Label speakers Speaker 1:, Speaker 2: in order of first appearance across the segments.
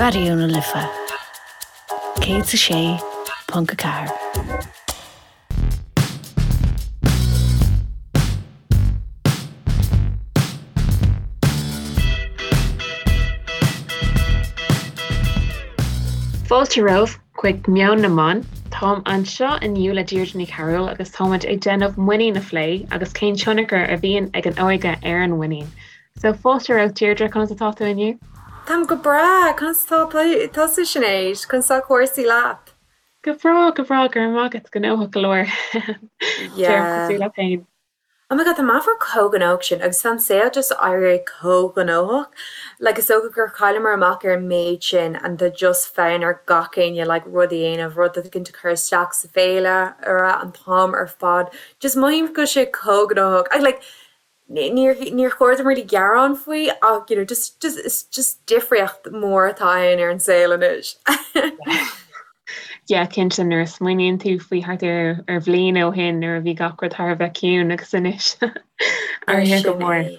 Speaker 1: Raidió na Life 106.4.
Speaker 2: Fáilte romhaibh chuig Meon na mBan. Táim anseo inniu le Deirdre Ní Chearúil agus táimid ag déanamh muinín a phlé agus cén tionchar a bhíonn ag an óige ar an mhuinín. So fáilte romhat Deirdre, conas atá tú inniu?
Speaker 3: Táim go breá, conas atá tusa Sinéad? Conas tá cúrsaí leat?
Speaker 2: Go breá, go breá, go raibh maith agat, gnóthach go leor.
Speaker 3: Yeah. Cosúil
Speaker 2: leat féin.
Speaker 3: Oh my god, tá meafar chomh gnóthach sin agus tá an saol just éirithe chomh gnóthach. Like is dócha gur chailleamar amach ar an méid sin and tá just fonn ar gach éinne like rud a dhéanamh, rud éicint a chur isteach sa féilire an t-am ar fad. Just mothaím go bhfuil sé chomh gnóthach. I like Níor níor chóir dom really gearán faoi ach you know just just is just difríocht mhór atá ann ar an saol anois.
Speaker 2: Yeah, cinnte nuair a smaoiníonn tú faoi thart ar ar bhliain ó shin nuair a bhí gach rud thar a bheith ciúin agus anois athraithe go
Speaker 3: Sin
Speaker 2: mór.
Speaker 3: é.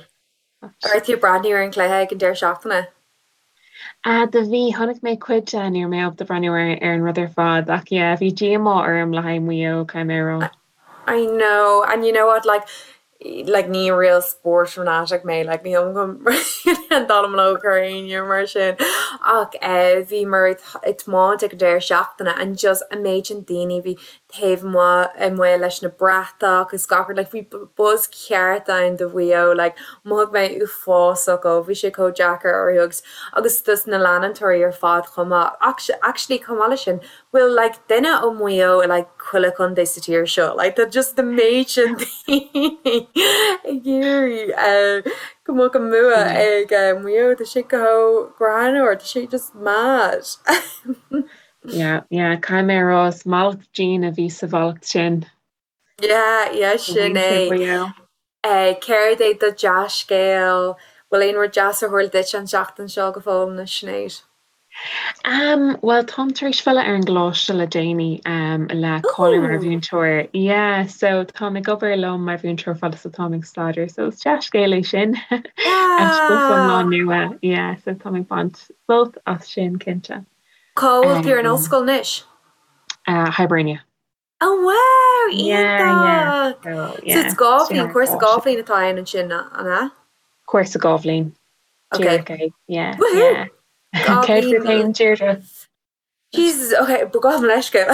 Speaker 3: An raibh tú ag breathnú ar an chluiche ag an deireadh seachtaine?
Speaker 2: Ah, do bhí, chonaic mé cuid de, ní raibh mé ábalta breathnú ar ar an rud ar fad ach yeah, bhí díomá orm le haghaidh Maigh Eo, caithfidh mé a rá.
Speaker 3: I know, and you know what, like, like ní real sport fanatic mé, like ní an dallamullóg ar éinne mar sin ach eh bhíomar ag tiomáint ag an deireadh seachtaine and just an méid sin daoine bhí taobh amuigh leis na bratach is gach rud, like bhí buzz ceart ann do Mhaigh Eo, like mhothaigh mé uafásach ó bhí sé chomh deacair orthu agus agus dos na leantóirí ar fad chomh maith. Actually chomh maith leis sin, bhfuil like duine ó Mhaigh Eo i like chuile chontae sa tír seo, like tá just an méid sin daoine ag iarraidh go mbeadh an bua ag Maigh Eo, tá sé chomh greannmhar, tá sé just mad.
Speaker 2: Yeah, yeah, caithfidh mé a rá, is mallacht dian a bhí sa mhallacht sin.
Speaker 3: Yeah, yeah, sin é. Eh, céard é do dea-scéal? Bhfuil aon rud deas ar tharla duit an tseachtain seo go fóill, a Sinéad?
Speaker 2: Um, bhuel, táim tar éis filleadh ar an gcoláiste le déanaí, um, le cáiliú mar mhúinteoir. Yeah, so táim ag obair liom mar mhúinteoir fad is atáim ag staidéar, so is dea-scéal é sin. Eispéireas iomlán nua, yeah, so táim ag baint sult as sin, cinnte.
Speaker 3: Cá bhfuil tú ar an ollscoil anois?
Speaker 2: Hibernia.
Speaker 3: Oh wow! Iontach! So it's 2 bhliain, cúrsa 2 bhliain atá ann ansin, an ea?
Speaker 2: Cúrsa 2 bhliain. Díreach é. Yeah, yeah. Céard fút féin, Deirdre?
Speaker 3: Jesus, ok, gabh mo leithscéal.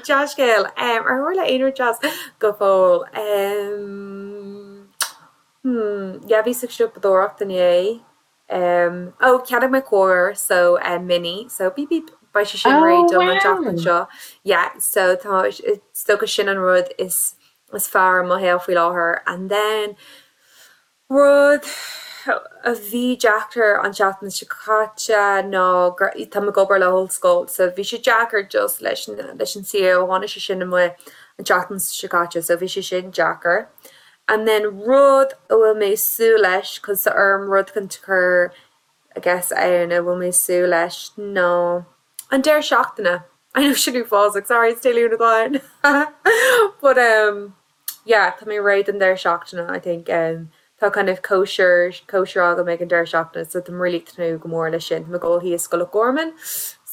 Speaker 3: Dea-scéal. Ar tharla aon rud deas go fóill? Hmm, yeah, bhíos ag siopadóireacht inné. Em, oh, cheannaigh mé carr, so, eh, Mini, so beep beep, beidh sé sin
Speaker 2: Oh,
Speaker 3: réidh dom an tseachtain
Speaker 2: wow!
Speaker 3: seo. Yeah, so tá, is dócha sin an rud is, is fearr i mo shaol faoi láthair. And then, rud a bhí deacair an tseachtain seo caite ná gur, táim ag obair le hollscoil, so bhí sé deacair just leis an, leis an CEO, tháinig sé sin amuigh an tseachtain seo caite, so bhí sé sin deacair. And then rud a bhfuil mé ag súil leis, cos tá orm rud éicint a chur I guess ann a bhfuil mé ag súil leis ná an deireadh seachtaine. I know sin uafásach, sorry it's Dé Luain atá ann but um yeah tá mé réidh don deireadh seachtaine I think um tá kind of cóisir cóisir agam ag an deireadh seachtaine so tá mé really ag tnúth go mór leis sin. Tá mé ag dul thíos go Loch Garman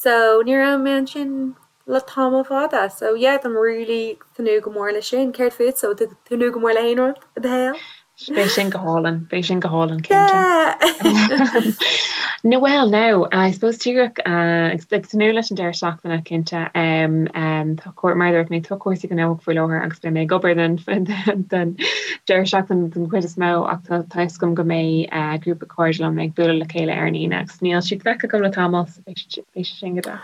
Speaker 3: so ní raibh mé ansin le tamall fada. So yeah, táim really ag tnúth go mór leis sin. Céard fútsa? Bhfuil tú ag tnúth go mór le haon rud i do shaol?
Speaker 2: Beidh sin go hálainn, beidh sin go hálainn cinnte. Yeah! No well now, I suppose díreach ag tnúth leis an deireadh seachtaine cinnte. Tá cúr mar a dúirt mé tá cúrsaí gnóthach faoi láthair agus beidh mé ag obair den den deireadh seachtaine den chuid is mó ach tá tá fhios agam go mbeidh grúpa cairde liom ag bualadh le chéile ar an Aoine agus níl siad feicthe agam le tamall so beidh sé sin go deas.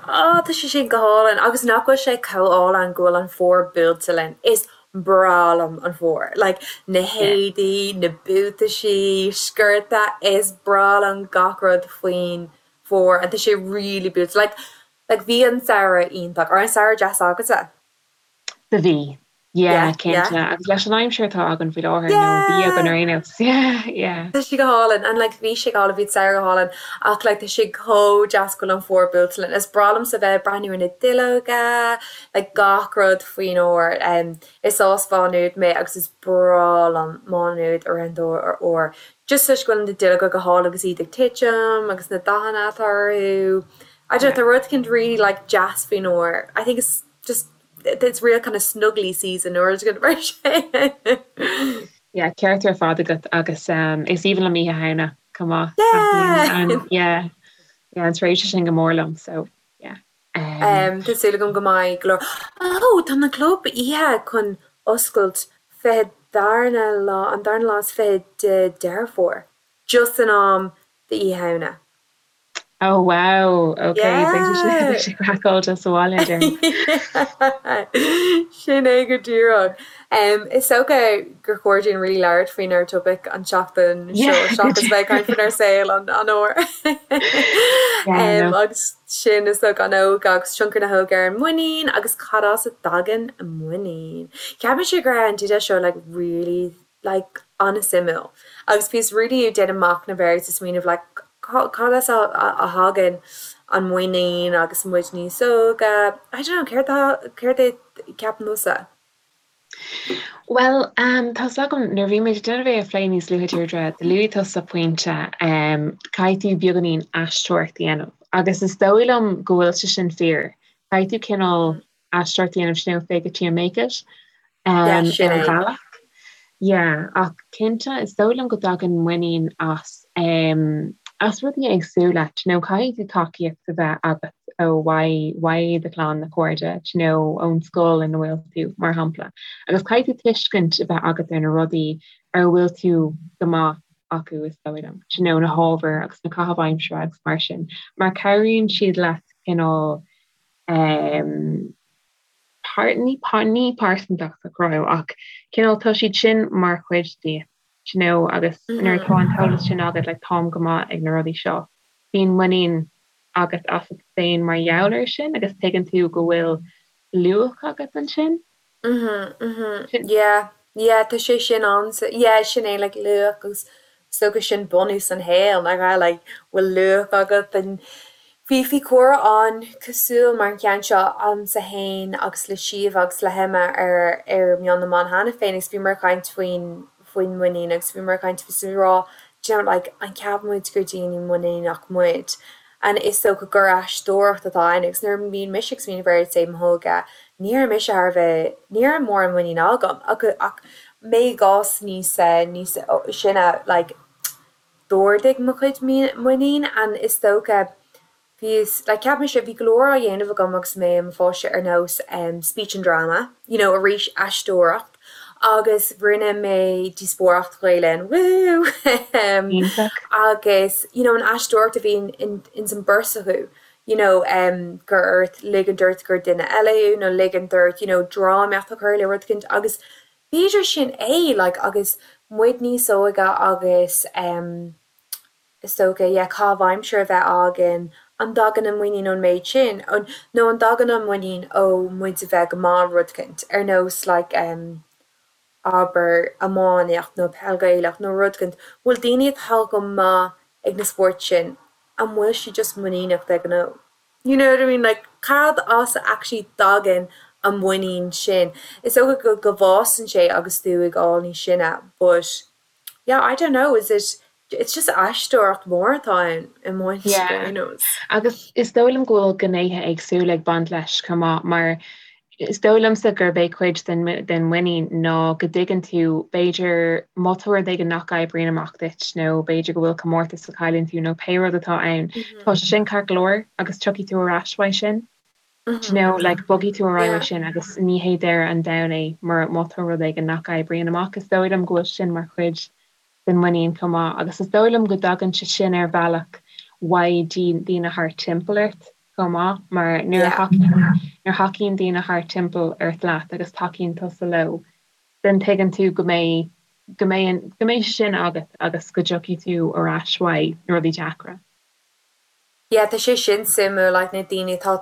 Speaker 3: Á, tá sé sin go hálainn. Agus nach bhfuil sé chomh álainn go bhfuil an fómhar buailte linn. Is breá liom an fómhar. Like, na héadaí, na buataisí, sciorta, is breá liom gach rud faoin bhfómhar and tá sé really buailte. Like, like bhí an samhradh iontach. An raibh an samhradh deas agatsa?
Speaker 2: Do bhí. Yeah, cinnte. Agus leis an aimsir atá againn faoi láthair, nó bhí againn ar aon nós. Yeah, yeah.
Speaker 3: Tá sé go hálainn. And like bhí sé go hálainn, bhí an samhradh go hálainn ach like tá sé chomh deas go bhfuil an fómhar buailte linn. Is breá liomsa bheith ag breathnú ar na duilleoga, like gach rud faoin fhómhar. Um, is as Mhá Nuad mé agus is breá liom Má Nuad i rith an fhómhair. Just toisc go bhfuil na duilleoga go hálainn agus iad ag titim agus na dathanna atá orthu. I don't know, tá rud eicínt really like deas faoin fhómhar. I think it's just It's real kind of snuggly season nó rud éigin mar
Speaker 2: sin. Yeah, ceart ar fad agat agus um, is aoibhinn liom Oíche Shamhna chomh maith. Yeah! Yeah, yeah, an tréimhse sin go mór liom, so yeah.
Speaker 3: Um, um, tá súil agam go mbeidh go leor. Oh, tá na club oíche chun oscailt 20 darna lá, an darna lá is 20 de Deireadh Fómhair, just in am d'Oíche Shamhna.
Speaker 2: Oh wow, ok, beidh sé craiceáilte sa bhaile
Speaker 3: déarfainn. Sin é go díreach. Is dócha gur chóir dúinn really labhairt faoinár topaic an tseachtain seo seachas bheith ag caint faoinár saol an fhómhair. Agus sin is dócha an óige agus tionchar na hóige ar an muinín agus cad as a dtagann muinín. Ceapaimse go raibh an teideal seo like really like an-suimiúil agus bhíos really ag déanamh machnamh air agus ag smaoineamh like cad as a thagann an muinín agus muid níos óige, I don't know, céard tá, céard é ceapann tusa?
Speaker 2: Bhuel, um, tá's agam nuair a bhí muid ag déanamh é a phlé níos luaithe Deirdre, do luaigh tusa pointe um, caithfidh tú beagáinín aisteoireacht a dhéanamh agus is dóigh liom go bhfuil sé sin fíor. Caithfidh tú cineál aisteoireacht a dhéanamh sin fake it till you make it ar bhealach. Yeah, ach cinnte is dóigh liom go dtagann muinín as um, as rudaí éagsúla, you know, caithfidh tú tacaíocht a bheith agat ó uaidh uaidh do chlann na cairde, you know, ón scoil ina bhfuil tú, mar shampla. Agus caithfidh tú tuiscint a bheith agat ar na rudaí ar a bhfuil tú go maith acu is dóigh liom, you know, na hábhair agus na caithimh aimsire agus mar sin, mar cabhraíonn siad leat cineál um, par, ní, par, ní pearsantacht a chruthú ach cineál tá siad sin mar chuid díot, you know, agus mm -hmm. nuair atá an t-eolas sin agat like, táim go maith ag na rudaí seo. Bíonn muinín agat asat féin mar gheall air sin agus tuigeann tú go bhfuil luach agat ansin.
Speaker 3: Mhm, mhm. Yeah, yeah, tá sé sin ann. Yeah, sin é like luach agus is dócha sin bunús an shaoil, nach ea? Like, bhfuil luach agat and bhí bhí comhrá ann cosúil mar an cheann seo agamsa fhéin agus le Síomha agus le hEmma ar ar Meon na mBan cheana féin agus bhíomar ag caint faoin faoin muinín agus bhíomar ag caint faoi rá do you know like an ceapann muid gur daoine muiníneach muid and is dócha gur aisteoireacht atá ann agus nuair a bhíonn mise ag smaoineamh ar say m'óige ní raibh mise thar a bheith ní raibh mórán muinín agam ach ach mé i gcás níos níos sine like d'ardaigh mo chuid muinín and is dócha bhíos like cheap mise bhí go leor á dhéanamh agam agus mé i mo pháiste ar nós um speech and drama you know arís aisteoireacht agus rinne mé díospóireacht Ghaelainn woo um agus you know an aisteoireacht a bhí in ins an beirt acu you know um gur ort ligint ort gur duine eile thú nó ligint ort you know drámaíocht a chur le rud eicínt agus b'fhéidir sin é like agus muid níos óige agus um is dócha yeah caitheamh aimsire a bheith againn an dtagann an muinín ón méid sin nó an dtagann an muinín ó muid a bheith go maith rud eicínt ar nós like um abair, iománaíocht nó peil Ghaelach nó rud eicínt, bhfuil daoine atá go maith ag na spóirt sin, an bhfuil siad just muiníneach de ghnáth? You know what I mean? Like, cad as a actually dtagann an muinín sin? Is dócha go go bhfásann sé agus tú ag fáil níos sine but yeah, I don't know, is it, it's just aisteoireacht mhór atá ann i mo
Speaker 2: Yeah. Agus is dóigh liom go bhfuil gnéithe éagsúla ag baint leis chomh maith mar is dóigh liomsa gurb é cuid den den muinín ná go dtuigeann tú b'fhéidir má tá rud éigin nach oibríonn amach duit nó b'fhéidir go bhfuil comórtas a chailleann tú nó pé rud atá ann, tá sé sin ceart go leor agus tiocfaidh tú ar ais uaidh sin. Do you know, like bogfaidh tú ar aghaidh uaidh sin agus ní hé deireadh an domhain é mura má tá rud éigin nach oibríonn amach. Is dóigh liom go bhfuil sin mar chuid den muinín chomh maith agus is dóigh liom go dtagann sé sin ar bhealach uaidh daoine thart timpeall ort chomh maith mar nuair a thacaíonn nuair a thacaíonn daoine thart timpeall ort leat agus tacaíonn tusa leo then tuigeann tú go mbeidh go mbeidh go mbeidh sé sin agat agus go dtiocfaidh tú ar ais uaidh na rudaí deacra.
Speaker 3: Yeah tá sé sin suimiúil like na daoine atá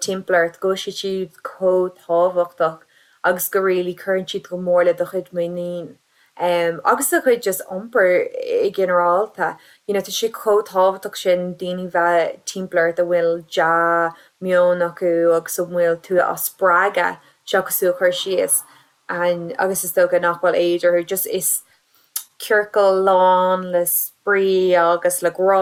Speaker 3: timpeall ort go bhfuil siad siúd chomh tábhachtach. agus go really cuireann siad go mór le do chuid muinín agus do chuid just iompair i ginearálta. You know tá sé chomh tábhachtach sin daoine bheith timpeall ort a bhfuil dea-meon acu agus a bhfuil tú á spreagadh seachas tú a chur síos and agus is dócha nach bhfuil éad orthu just is ciorcal lán le spraoi agus le grá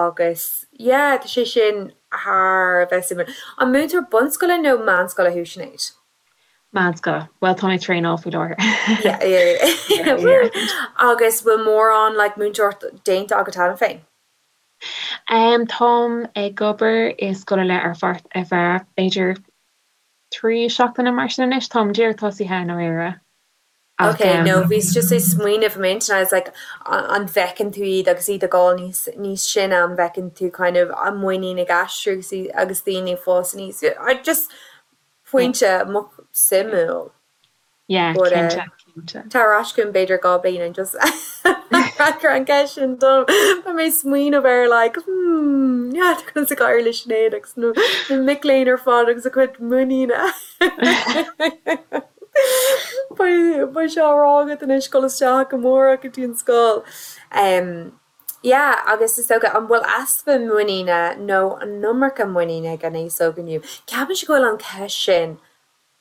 Speaker 3: agus yeah tá sé sin thar a bheith suimiúil. An múinteoir bunscoile nó meánscoile thú Sinéad?
Speaker 2: Meánscoile. Bhuel tá mé ag traenáil faoi láthair.
Speaker 3: Yeah yeah yeah. Woo! Agus bhfuil mórán like múinteoireacht déanta agat cheana féin?
Speaker 2: Um táim ag obair i scoil ar leith ar pháirt ar feadh b'fhéidir 3 seachtaine mar sin anois. Táim díreach tosaithe i ndáiríre.
Speaker 3: Ach Ok, no bhíos just ag smaoineamh i m'intinn, I was like an bhfeiceann tú iad agus iad ag gabháil níos níos sine, an bhfeiceann tú kind of an muinín ag aistriú agus agus daoine ag fás aníos. I just pointe suimiúil.
Speaker 2: Yeah, But cinnte, cinnte.
Speaker 3: Tar ar ais chugam b'fhéidir 2 bliain and just freagair an ceist sin dom. Beidh mé ag smaoineamh ar like hmm yeah tá conas ag éirí le Sinéad agus na na mic léinn ar fad agus a cuid muiníne. Beidh beidh sé á rá agat anois dul isteach amárach go dtí an scoil. Um yeah agus is dócha an bhfuil easpa muiníne nó an iomarca muiníne ag an aos óg inniu? Ceapaimse go bhfuil an cheist sin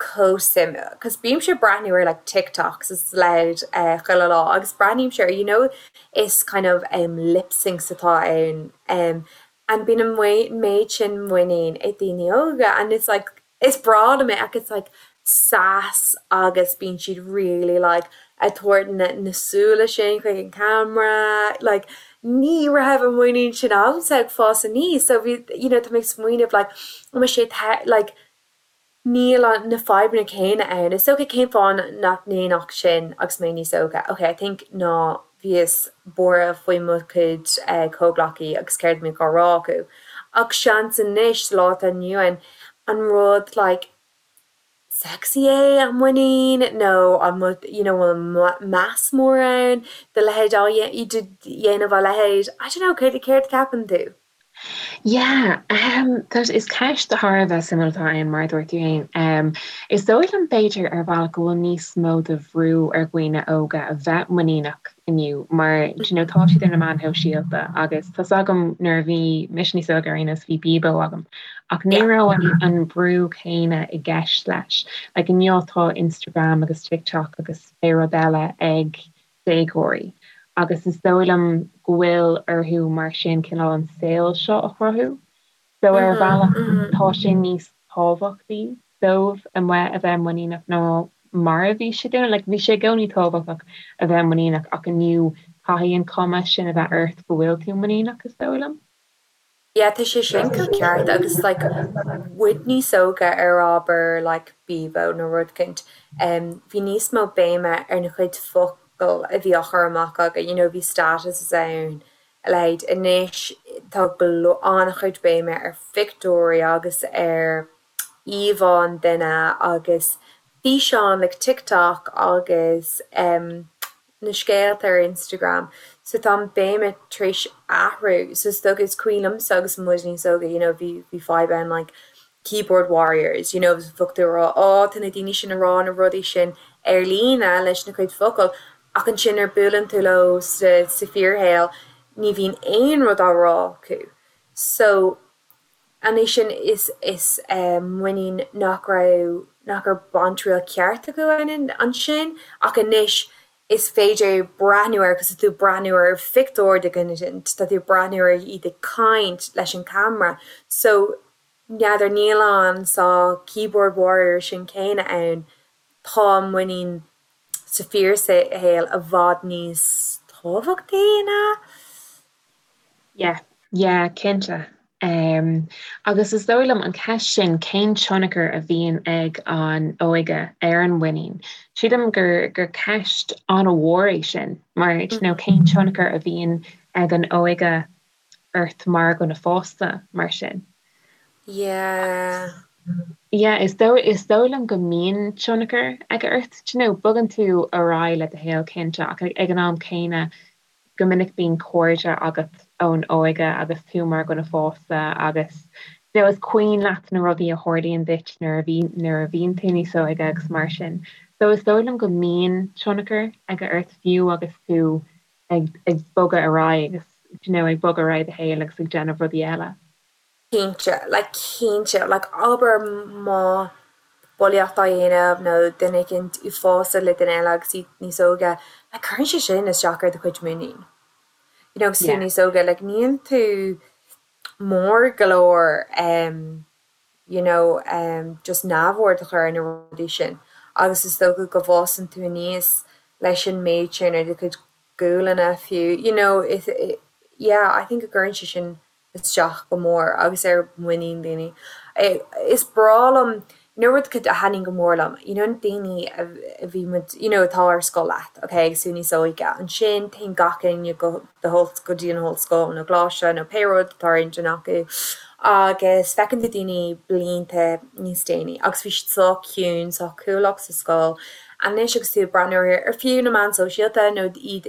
Speaker 3: chomh suimiúil 'cause bímse ag breathnú ar like TikToks is a leithéid eh chuile lá agus breathnaímse ar you know is kind of em lip syncs atá ann em and bíonn an méid sin muinín ag daoine óga and it's like is breá liom é ach it's like sass agus bíonn siad really like ag tabhairt na na súile sin chuig an camera like ní raibh an muinín sin agamsa ag fás aníos so bhí you know tá mé ag smaoineamh like an bhfuil sé like Níl na fadhbanna céanna ann. Is dócha cén fáth nach ndéanfadh sin agus mé níos óige? Ok, I think ná bhíos buartha faoi mo chuid comhghleacaí agus céard a mbíodh á rá acu. Ach seans anois, sa lá atá inniu ann, an rud like sexy é an muinín nó an bhfuil you know bhfuil meas mór ann do leithéid á dhéanamh a leithéid? I don't know, céard céard a cheapann tú?
Speaker 2: Yeah, um, tá, is ceist thar a bheith suimiúil atá ann, mar a dúirt tú féin. Um, is dóigh liom b'fhéidir ar bhealach go bhfuil níos mó de bhrú ar dhaoine óga a bheith muiníneach inniu mar do you know, tá siad ar na meáin shóisialta agus tá's agam nuair a bhí mise níos óige ar aon nós bhí Bebo agam ach ní raibh an, an brú céanna i gceist leis. Like inniu tá Instagram agus TikTok agus pé rud eile ag déagóirí agus is dóigh liom go bhfuil orthu mar sin cineál an saol seo a chruthú. So ar bhealach tá sé níos tábhachtaí dóibh amuigh a bheith muiníneach ná mar a bhí sé dúinn. Like bhí sé i gcónaí tábhachtach a bheith muiníneach ach inniu caithfidh an cuma sin a bheith ort go bhfuil tú muiníneach is dóigh liom.
Speaker 3: Yeah tá sé sin chomh ceart agus like muid níos óige ar abair like Bebo nó rud éicint em bhí níos mó béime ar na cuid focal a bhí á chur amach againn you know bhí statuses ann a leithéid anois tá go leor an-chuid béime ar phictiúirí agus ar íomhá an duine agus físeáin like TikTok agus em na scéalta ar Instagram so tá an béime tar éis athrú so is dócha is cuimhin liomsa agus muid níos óige you know bhí bhí fadhb ann like keyboard warriors you know bheadh tú ag rá oh tá na daoine sin ag rá na rudaí sin ar líne leis na cuid focal ach ansin nuair buaileann tú leo sa sa fíorshaol ní bhíonn aon rud á rá acu so Anois sin is is muinín nach raibh nach raibh baint triail ceart acu ann ansin ach anois is féidir breathnú air agus tá tú ag breathnú ar phictiúr de dhuine tá tú ag breathnú ar iad ag caint leis an camera so n'fheadar níl an sórt keyboard warrior sin céanna ann tá muinín sa fíorshaol i bhfad níos tábhachtaí ná
Speaker 2: Yeah, yeah, cinnte. Um, agus is dóigh liom an ceist sin cén tionchar a bhíonn ag an óige ar an mhuinín. Sílim gur gur ceist an-mhór é sin, mar you know, cén tionchar a bhíonn ag an óige ort mar dhuine fásta mar sin.
Speaker 3: Yeah.
Speaker 2: Yeah, is dóigh is dóigh liom go mbíonn tionchar aige ort, you know, bogann tú ar aghaidh le do shaol cinnte ach ag an am céanna Go minic bíonn cairde agat ón óige agus tú mar dhuine fásta agus. Now is cuimhin leat na rudaí a tharlaíonn duit nuair a bhí, nuair a bhíonn tú níos óige agus mar sin. So is dóigh liom go mbíonn tionchar aige ort fiú agus tú ag, ag bogadh ar aghaidh agus, do you know, ag bogadh ar aghaidh i do shaol agus ag déanamh rudaí eile.
Speaker 3: Cinnte, like cinnte, like abair má bulaíocht á dhéanamh nó duine éicint uafásach le duine eile agus iad níos óige, like cuireann sé sin isteach ar do chuid muinín. You know, agus tú níos óige, like níl tú mór go leor em you know em just neamhaird a chur ar na rudaí sin agus is dócha go bhfásann tú aníos leis an méid sin ar do chuid gualainne fiú you know is yeah I think go gcuireann sé sin isteach go mór agus ar mhuinín daoine. Is breá liom You know rud a thaitníonn go mór liom, you know na daoine a bhí muid, you know atá ar scoil leat, ok, agus tú níos óige, ansin téann gach éinne go the go dtí an ollscoil nó coláiste nó pé rud atá ar intinn acu agus feiceann tú daoine blianta níos déanaí agus bhí siad sách ciúin, sách cúlach sa scoil. Anois agus tú ag breathnú ar ar fiú na meáin sóisialta nó iad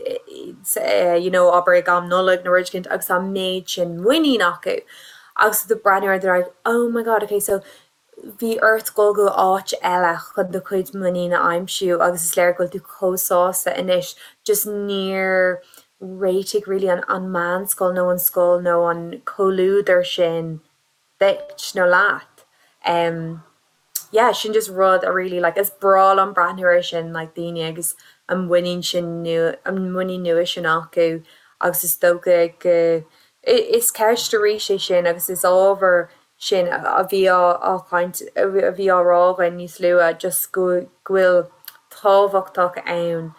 Speaker 3: you know abair ag am Nollag nó rud éicint agus tá an méid sin muinín acu agus tú ag breathnú ar they're like oh my god ok so bhí ort dul go áit eile chun do chuid muinín a aimsiú agus is léir go bhfuil tú chomh sásta anois, just níor réitigh really an an meánscoil nó an scoil nó an comhluadar sin duit nó leat. Em yeah sin just rud a really like is breá liom breathnú air sin like daoine agus an muinín sin nua an muinín nua sin acu agus is dócha go is ceist arís é sin agus is ábhar sin a bhí á chaint, a bhí á rá againn níos luaithe, just go bhfuil tábhachtach ann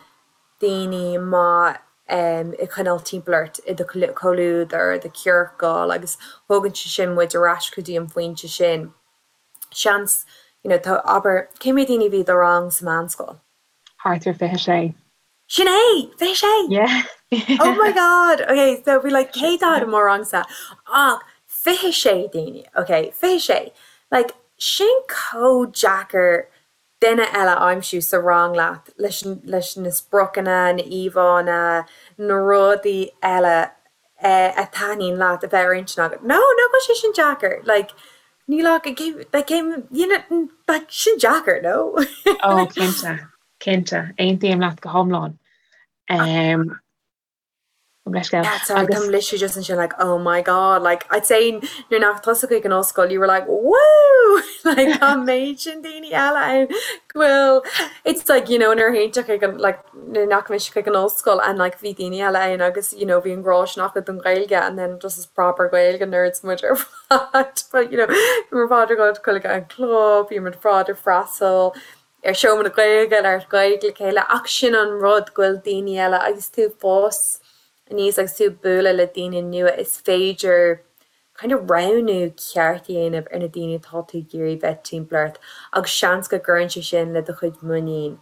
Speaker 3: daoine maith a choinneáil timpeall ort i do chomhluadar, i do chiorcal agus thógann sé sin muid ar ais go dtí an phointe sin. Seans, you know, tá, abair, cé mhéad daoine a bhí i do rang sa mheánscoil?
Speaker 2: Thart ar 26.
Speaker 3: Sin é! 26!
Speaker 2: Yeah.
Speaker 3: Oh my god! Ok, so bhí like 140 i mo rangsa ach 26 daoine, ok, 26. Like, sin chomh deacair duine eile a aimsiú sa rang leat leis, leis na spriocanna, na íomhánna, na rudaí eile a thaitníonn leat a bheith ar intinn agat. No, nach bhfuil sé sin deacair? Like, níl ach, like, you know, like, sin deacair, no?
Speaker 2: Oh, cinnte. Cinnte, aontaím leat go hiomlán.
Speaker 3: Leithscéal. Yeah, sorry, táim literally just ansin like, oh my god, like, I'd say nuair nach tusa chuig an ollscoil, you were like, woo! Like, tá an méid sin daoine eile ann go bhfuil, it's like, you know, nuair a théann tú chuig an, like, nuair nach mise chuig an ollscoil and like bhí daoine eile ann agus, you know, bhí an grá sin acu don Ghaeilge and then just is proper Gaeilge nerds muid ar fad, but, you know, bhí muid ar fad ag dul chuig an club, bhí muid ar fad ag freastal ar seomra na Gaeilge, labhairt Gaeilge le chéile ach sin an rud go bhfuil daoine eile agus tú ag fás aníos agus tú ag bualadh le daoine nua is féidir kind of roghnú ceart a dhéanamh ar na daoine atá tú ag iarraidh bheith timpeall ort agus seans go gcuireann sé sin le do chuid muinín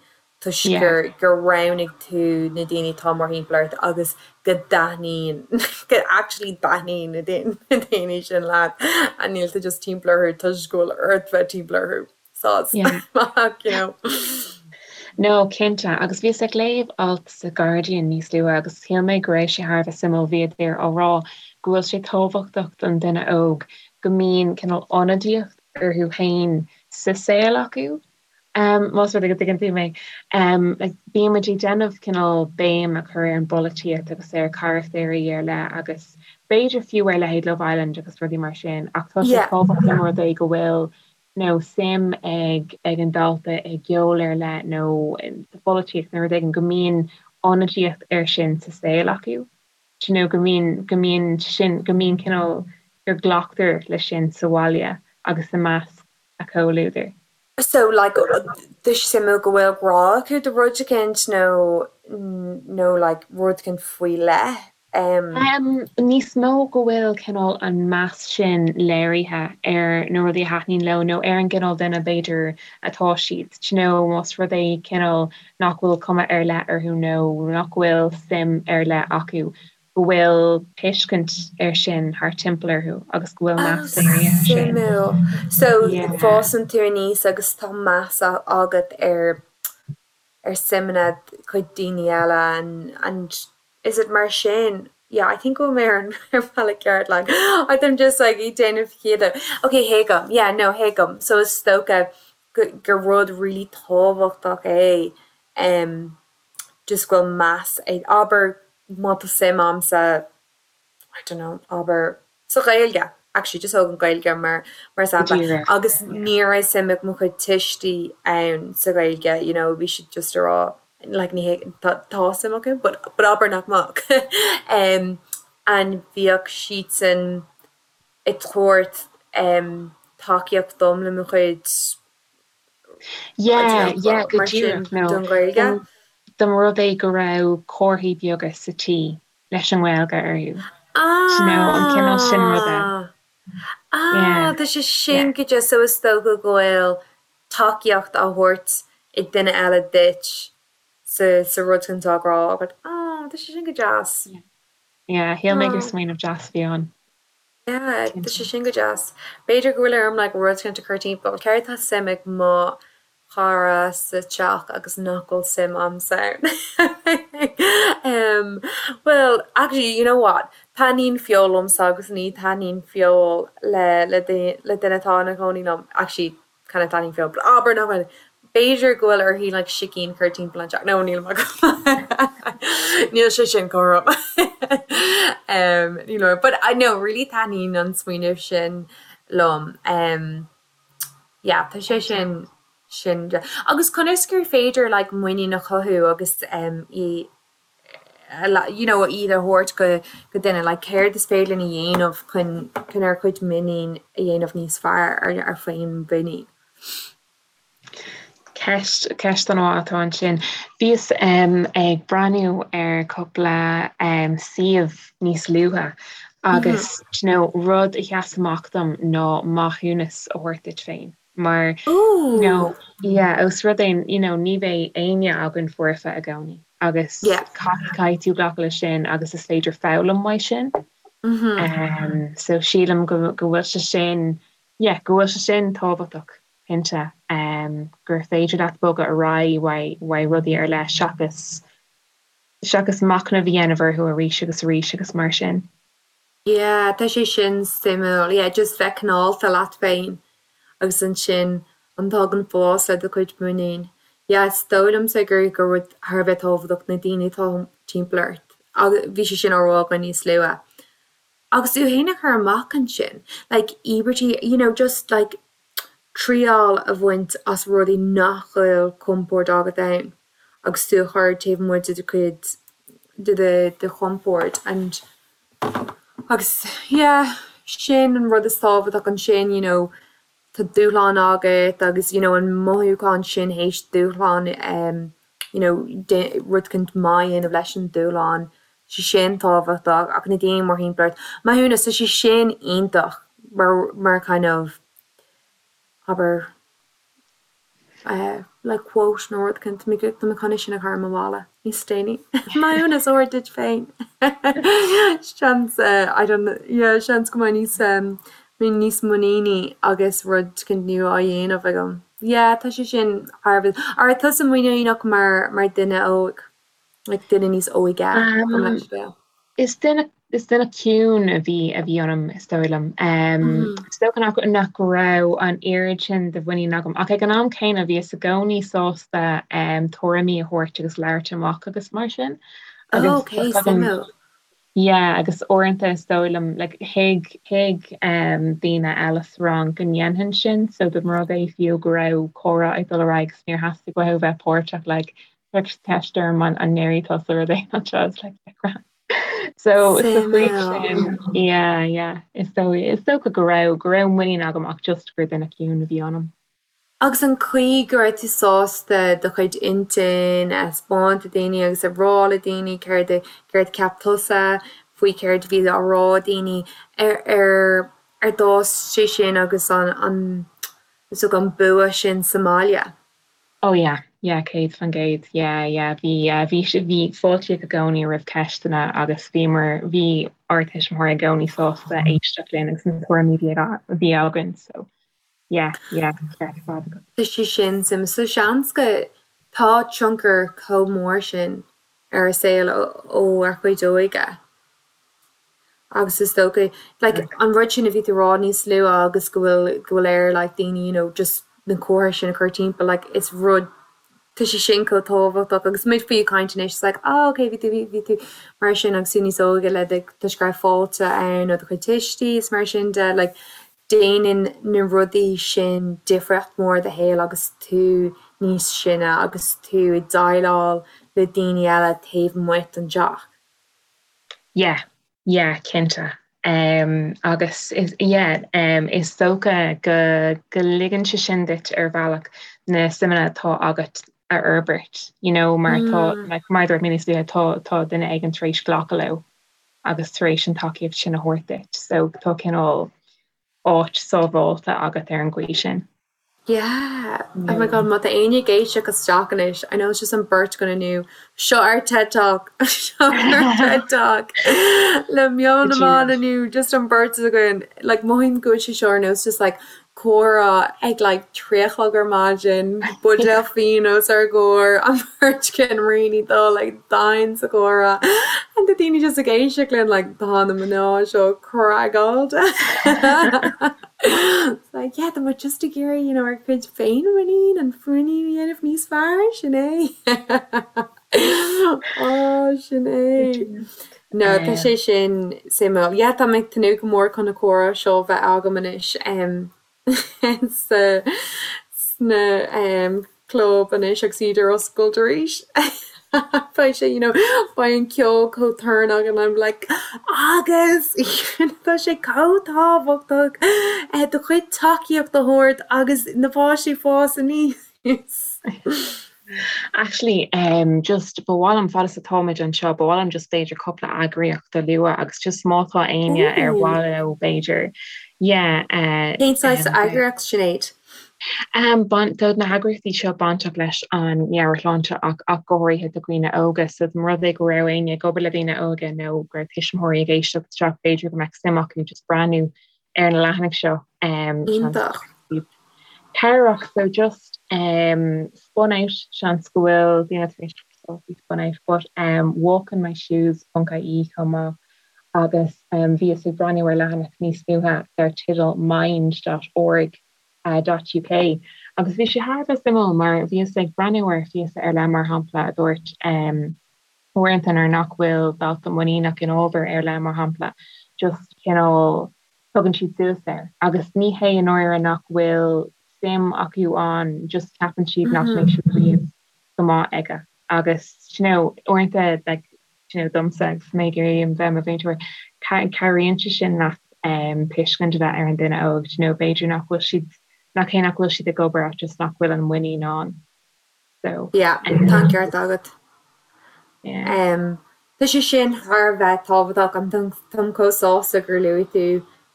Speaker 3: toisc gur gur roghnaigh tú na daoine atá mórthimpeall ort agus go dtaitníonn go actually dtaitníonn na daoine sin leat and níl tú just timpeall orthu toisc go bhfuil ort bheith timpeall orthu. Saghas.
Speaker 2: Yeah.
Speaker 3: You know.
Speaker 2: No, cinnte. Agus bhíos ag léamh alt sa Guardian níos luaithe agus shíl mé go raibh sé thar a bheith suimiúil. Bhíodar á rá go bhfuil sé tábhachtach don duine óg go mbíonn cineál ionadaíocht orthu féin sa saol acu. Um, más rud é go dtuigeann tú mé. Um, like, bíonn muid ag déanamh cineál béim a chur ar an bpolaitíocht agus ar charachtéirí ar leith agus b'fhéidir fiú ar leithéid Love Island agus rudaí mar sin, ach tá sé
Speaker 3: Yeah.
Speaker 2: tábhachtach más rud é go bhfuil nó suim ag ag an dalta i gceol ar leith nó sa pholaitíocht nó rud éigin, go mbíonn ionadaíocht air sin sa saol acu, do you know, go mbíonn, go mbíonn sin, go mbíonn cineál, gur glactar leis sin sa bhaile agus i measc a comhluadair.
Speaker 3: So, like, tá sé suimiúil go bhfuil grá acu do rud eicínt nó, nó like rud eicínt faoi leith.
Speaker 2: Níos mó go bhfuil cineál an meas sin léirithe ar na rudaí a thaitníonn leo nó ar an gcineál duine b'fhéidir atá siad, do you know, más rud é cineál nach bhfuil cuma ar leith orthu nó nach bhfuil suim ar leith acu, go bhfuil tuiscint air sin thart timpeall orthu agus go bhfuil meas léirithe air sin.
Speaker 3: Suimiúil. So fásann tú aníos agus tá meas agat ar ar suimeanna cuid daoine eile and and is it mar sin? yeah I think go bhfuil mé ar an ar bhealach ceart like I'm just like ag déanamh ciall. Ok thuigim yeah no thuigim so is dócha go gur rud really tábhachtach é em just go bhfuil meas ag abair má tá suim a'msa I don't know, abair, sa Ghaeilge, actually just thóg an Ghaeilge mar mar sampla, agus ní raibh suim ag mo chuid tuistí ann sa Ghaeilge, you know, bhí siad just a rá like ní hé tá tá suim acu but but abair nach mbeadh em and bhíodh siadsan ag tabhairt em tacaíocht dom le mo chuid
Speaker 2: Yeah, yeah, go díreach, no.
Speaker 3: Don Ghaeilge.
Speaker 2: Dá mba rud é go raibh comharthaí beaga sa tí leis an nGaeilge orthu. You know, an cineál sin ruda.
Speaker 3: Ah, ah, tá sé sin go deas, so is dócha go bhfuil tacaíocht á thabhairt ag duine eile duit sa sa rud sin atá á rá agat. Ah, tá sé sin go deas.
Speaker 2: Yeah, shíl mé gur smaoineamh deas a bhí ann.
Speaker 3: Yeah, tá sé sin go deas. B'fhéidir go bhfuil orm like rud éicint a chur timpeall. Céard tá suim ag mo chara sa teach agus nach bhfuil suim a'msa ann? um, well, actually, you know what? Taitníonn feoil liomsa agus ní taitníonn feoil le le le duine atá ina chónaí liom. Actually, kind of taitníonn feoil, but abair nach bhfuil. B'fhéidir go bhfuil uirthi like sicín a chur timpeall an teach. No, níl Níl sé sin cothrom. um, níl but I know really taitníonn an smaoineamh sin liom. Um, yeah, tá sé sin sin agus conas gur féidir like muinín a chothú agus um, í you know, iad a thabhairt go go duine, like céard is féidir linn a dhéanamh chun chun ár gcuid muinín a dhéanamh níos fearr, ar ár féinmhuinín.
Speaker 2: Ceist, ceist an-mhaith atá ansin. Bhíos ag breathnú ar cúpla suíomh níos luaithe agus you know, rud a sheas amach dom ná maithiúnas a thabhairt duit féin. Mar you know, yeah, os rud é you know, ní bheidh éinne againn foirfe i gcónaí agus caithfidh tú glacadh leis sin agus is féidir foghlaim uaidh sin. So sílim go go bhfuil sé sin, yeah, go bhfuil sé sin tábhachtach, cinnte, gur féidir leat bogadh ar aghaidh uaidh uaidh rudaí ar leith seachas seachas machnamh a dhéanamh orthu arís agus arís agus mar sin.
Speaker 3: Yeah, tá sé sin suimiúil. Yeah, just bheith cineálta leat féin agus ansin an tagann fás le do chuid muinín. Yeah, is dóigh liomsa gur gur rud thar a bheith tábhachtach na daoine atá timpeall ort. Agus bhí sé sin á rá againn níos luaithe. Agus tú féin a chur amach ansin, like íobairtí, you know, just like triail a bhaint as rudaí nach bhfuil compord agat ann agus tú a chur taobh amuigh de do chuid de do do chompord and agus yeah sin an rud is tábhachtach ansin you know tá dúshlán agat agus you know an mothúchán sin théis dúshlán em you know rud éicint maith a dhéanamh leis an dúshlán sé sin tábhachtach ach na daoine mórthimpeall ort maithiúnas tá sé sin iontach mar mar kind of abair eh like quote nó rud éicint tá mé tá mé chun é sin a chur ar mo bhalla níos déanaí maithiúnas a thabhairt duit féin seans eh I don't know yeah seans go mbeidh níos em mbeidh níos muiníní agus rud éicint nua á dhéanamh agam. Yeah tá sé sin thar a bheith An raibh tusa muiníneach mar mar duine óg? Like duine níos óige gabh mo leithscéal.
Speaker 2: Is duine is duine ciúin a bhí a bhí ionam is dóigh liom. Is dócha nach nach raibh an oiread sin de mhuinín agam ach ag an am céanna bhíos i gcónaí sásta tuairimí a thabhairt agus labhairt amach agus mar sin.
Speaker 3: Agus Ok, suimiúil.
Speaker 2: Yeah, agus uaireanta is dóigh liom, like, thuig, thuig um, daoine eile sa rang go ndéanfainn sin, so dá mba rud é fiú go raibh comhrá ag dul ar aghaidh agus níor theastaigh uathu bheith páirteach, like, chuir ceist orm an, an ndéarfaidh tusa rud éigin anseo, it's like, yeah, grand. So, sa chaoi sin, yeah, yeah, is dóigh, is dócha go raibh, go raibh muinín agam ach just gur duine ciúin a bhí ionam.
Speaker 3: Agus an chaoi go raibh tú sásta do chuid intinn a thaispeáint do daoine agus a rá le daoine céard a céard a cheap tusa faoi céard a bhí á rá ag daoine, ar ar ar d'fhás sé sin agus an an is dócha an bua sin sa mbaile?
Speaker 2: Oh yeah, yeah, 100%, yeah, yeah, bhí bhí bhí fáiltíodh i gcónaí roimh ceisteanna agus bhíomar bhí ár tuismitheoirí i gcónaí sásta éisteacht linn agus na tuairimí a bhí againn so Yeah, yeah, ceart ar fad agat.
Speaker 3: Tá sé sin suimiúil. So seans go tá tionchar chomh mór sin ar ár saol ó ár gcuid óige. Agus is dócha, like, an rud sin a bhí tú a rá níos luaithe agus go bhfuil, go bhfuil ar, like, daoine, you know, just na comharthaí sin a chur timpeall, like, is rud, tá sé sin chomh tábhachtach agus muid faoi ag caint anois, it's like, oh, okay, bhí tú, bhí, bhí tú mar sin agus tú níos óige le do, toisc go raibh fáilte ann ó do chuid tuistí is mar sin de, like, déanann na rudaí sin difríocht mhór i do shaol agus tú níos sine agus tú ag déileáil le daoine eile taobh amuigh den teach.
Speaker 2: Yeah, yeah, cinnte. Um, agus is, yeah, um, is dócha go, go ligeann sé sin duit ar bhealach na suimeanna atá agat a fhorbairt, you know, mar tá, mm. like, mar dúirt mé níos luaithe, tá, tá duine éigin tar éis glacadh leo agus tar éis an tacaíocht sin a thabhairt duit. So tá cineál áit sábháilte agat ar an gcaoi sin.
Speaker 3: Yeah! Oh my god, má tá éinne ag éisteacht isteach anois, I know it's just an bheirt againn inniu, seo ár TED Talk! Seo ár TED Talk! Le Meon na mBan inniu, just an bheirt againn. Like, mothaím go bhfuil sé seo ar nós just like comhrá ag like 3 a chlog ar maidin, buidéal fíon os ár gcomhair, an bheirt againn really dul like domhain sa chomhrá and tá daoine just ag éisteacht linn like tá na mná seo craiceáilte. It's like yeah tá muid just ag iarraidh you know ár gcuid féinmhuinín an mhuinín a dhéanamh níos fearr, sin é. Oh, sin é. No, tá sé sin suimiúil. Yeah, tá mé ag tnúth go mór chun na comhrá seo a bheith agam anois sa sna club anois agus iad ar oscailt arís. Beidh sé, you know, beidh an ceol chomh torann and I'm like agus tá sé chomh tábhachtach do chuid tacaíocht a thabhairt agus na páistí fás aníos.
Speaker 2: Actually, um, just ba mhaith liom fad is atáimid anseo, ba mhaith liom just b'fhéidir cúpla eagraíocht a lua agus just má tá éinne ar mhaith leo b'fhéidir, yeah,
Speaker 3: uh, Cén saghas um, eagraíocht, Sinéad?
Speaker 2: Um, tá na heagraíochtaí seo bainteach leis an meabhairshláinte ach ach go háirithe do dhaoine óga, so dá mba rud é go raibh éinne ag obair le daoine óga nó go raibh tuismitheoirí ag éisteacht isteach b'fhéidir go mbeadh suim acu just breathnú ar na leathanaigh seo. Um,
Speaker 3: Iontach.
Speaker 2: Cabhrach so just um, spun out seans go bhfuil daoine tar éis faoi spun out but um, walkinmyshoes.ie chomh maith agus um, bhíos ag breathnú ar leathanach níos luaithe dar teideal mind.org uh, .uk agus bhí sé thar a bheith suimiúil mar bhíos ag breathnú ar phíosa ar leith mar shampla a dúirt um, uaireanta nuair nach bhfuil dalta muiníneach in ábhar ar leith, mar shampla, just cineál tugann siad suas air agus ní hé i ndáiríre nach bhfuil suim acu ann, just ceapann siad nach mbeidh siad riamh go maith aige agus you know uaireanta like you know domsa agus mé ag iarraidh bheith i mo mhúinteoir cabhraíonn sé sin leat um, tuiscint a bheith ar an duine óg, you know b'fhéidir nach bhfuil siad nach hé nach bhfuil siad ag obair ach just nach bhfuil an muinín ann.
Speaker 3: So, Yeah, tá an ceart agat. Yeah. Um, tá sé sin thar a bheith tábhachtach and táim chomh sásta gur luaigh tú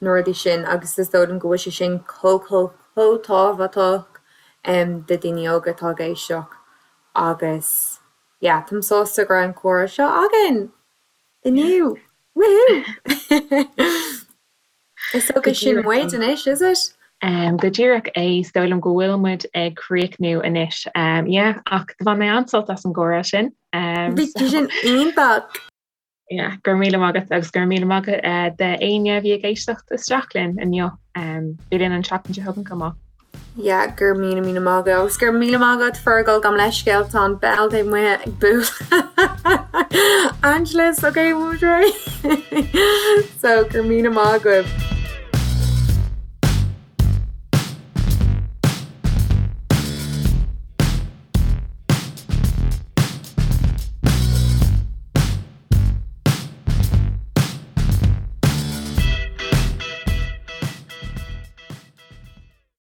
Speaker 3: na rudaí sin agus is dóigh liom go bhfuil sé sin chomh chomh chomh tábhachtach um, do daoine óga atá ag éisteacht agus yeah, táim sásta go raibh an comhrá seo againn inniu. Woohoo! Is dócha sin muid anois, is it?
Speaker 2: Um, go díreach é, is dóigh liom go bhfuil muid ag críochnú anois. Um, yeah, ach do bhain mé an-sult as an gcomhrá sin.
Speaker 3: Um, Bhí so, sin iontach!
Speaker 2: Yeah, go raibh míle maith agat agus go raibh míle maith agat uh, d'éinne a bhí ag éisteacht isteach linn inniu. Um, bí linn an tseachtain seo chugainn chomh maith.
Speaker 3: Yeah, go raibh míle míle maith agat agus go raibh míle maith agat Fergal gabh mo leithscéal tá an bell taobh amuigh ag bualadh. Angelus, okay, bhfuil muid réidh? So go raibh míle maith agaibh.